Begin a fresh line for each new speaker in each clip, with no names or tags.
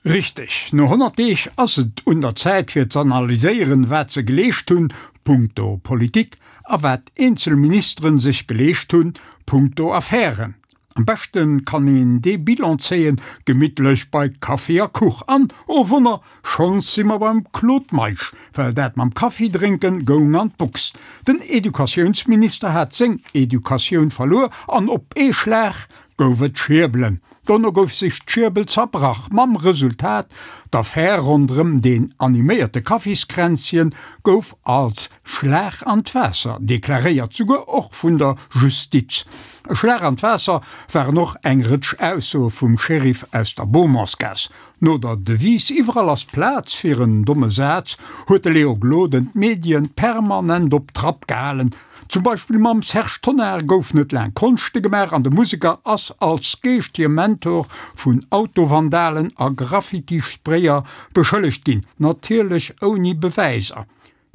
Richteg, no 100 Deeg ass et un der Zäit fir z'analyséieren, wat se geleescht hunn, punkto Politik, a wat eenzel Ministeren sech geleescht hunn, punkto Affären. Am beschte kann een dee Bilan zéien, gemittlech bei Kaffi a Kuch. An, oh Wonner, schonns si mer beim Claude Meisch, well dat mam Kaffi drénken goung an d'Box. Den Educatiounsminister hat seng Educatioun verluer an op ee Schlag gouf et Schierbelen. Dono gouf sech d'Schierbel zerbrach, mam Resultat, d'Affär ronderëm deen animéierte Kaffiskränzchen gouf als Schlag an d'Waasser deklaréiert, souguer och vun der Justiz. E Schlag an d'Waasser waren och eng Rëtsch Aussoe vum Sheriff aus der Beaumontsgaass. No der Devise Iwwerall ass Plaz fir en domme Saz huet de Léo Gloden d'Medien permanent op Trapp gehalen. Zum Beispill mam Serge Tonnar gouf net laang Konschte gemaach an de Museker ass als geeschtege Mentor vun Autovandalen a Graffiti-Sprayer beschëllegt ginn, natierlech ouni Bewäiser.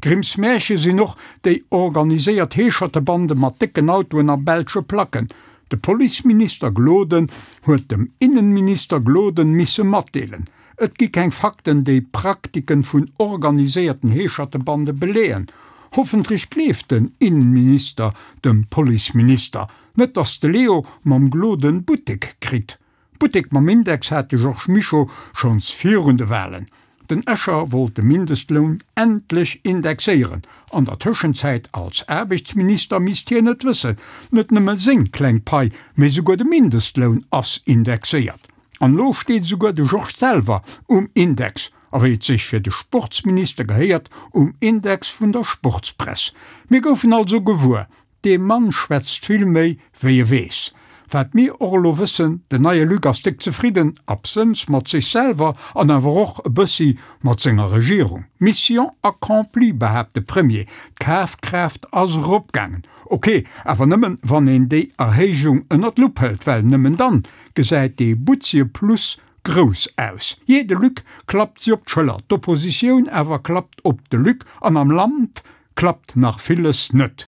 Grimms Märche sinn och déi organiséiert Heeschertebande mat décken Autoen a belsche Placken. De Policeminister Gloden huet dem Innenminister Gloden misse matdeelen, et gi keng Fakten déi Praktiken vun organiséierten Heeschertebande beleeën. Hoffentlech gleeft den Innenminister dem Policeminister, net dass de Leo mam Gloden Buttek kritt. Buttek mam Index hat de Georges Mischo schonns virun de Walen. Den Escher wollt de Mindestloun endlech indexéieren. An der Tëschenzäit als Aarbechtsminister misst hien et wëssen, net nëmme seng kleng Pai, mee souguer de Mindestloun ass indexéiert. An elo steet esouguer de Georges selwer um Index, a wéi et sech fir de Sportsminister gehéiert, um Index vun der Sportspress. Mir goufen also gewuer, Dee Mann schwätzt vill méi, wéi e weess. Wat mir och elo wëssen, den neie Luc ass déck zefridden, absënns mat sech selwer an awer och e bëssi mat senger Regierung. Mission accomplie, behaapt de Premier, d'Kafkraaft ass eropgaangen. Ok, awer nëmmen, wann een déi Erhéijung ënner d'Lupp hëlt, well nëmmen dann gesäit dee butzie Plus grouss aus. Jee, de Luc klappt si op d'Schëller, d'Oppositioun awer klappt op de Luc an am Land klappt nach villes net.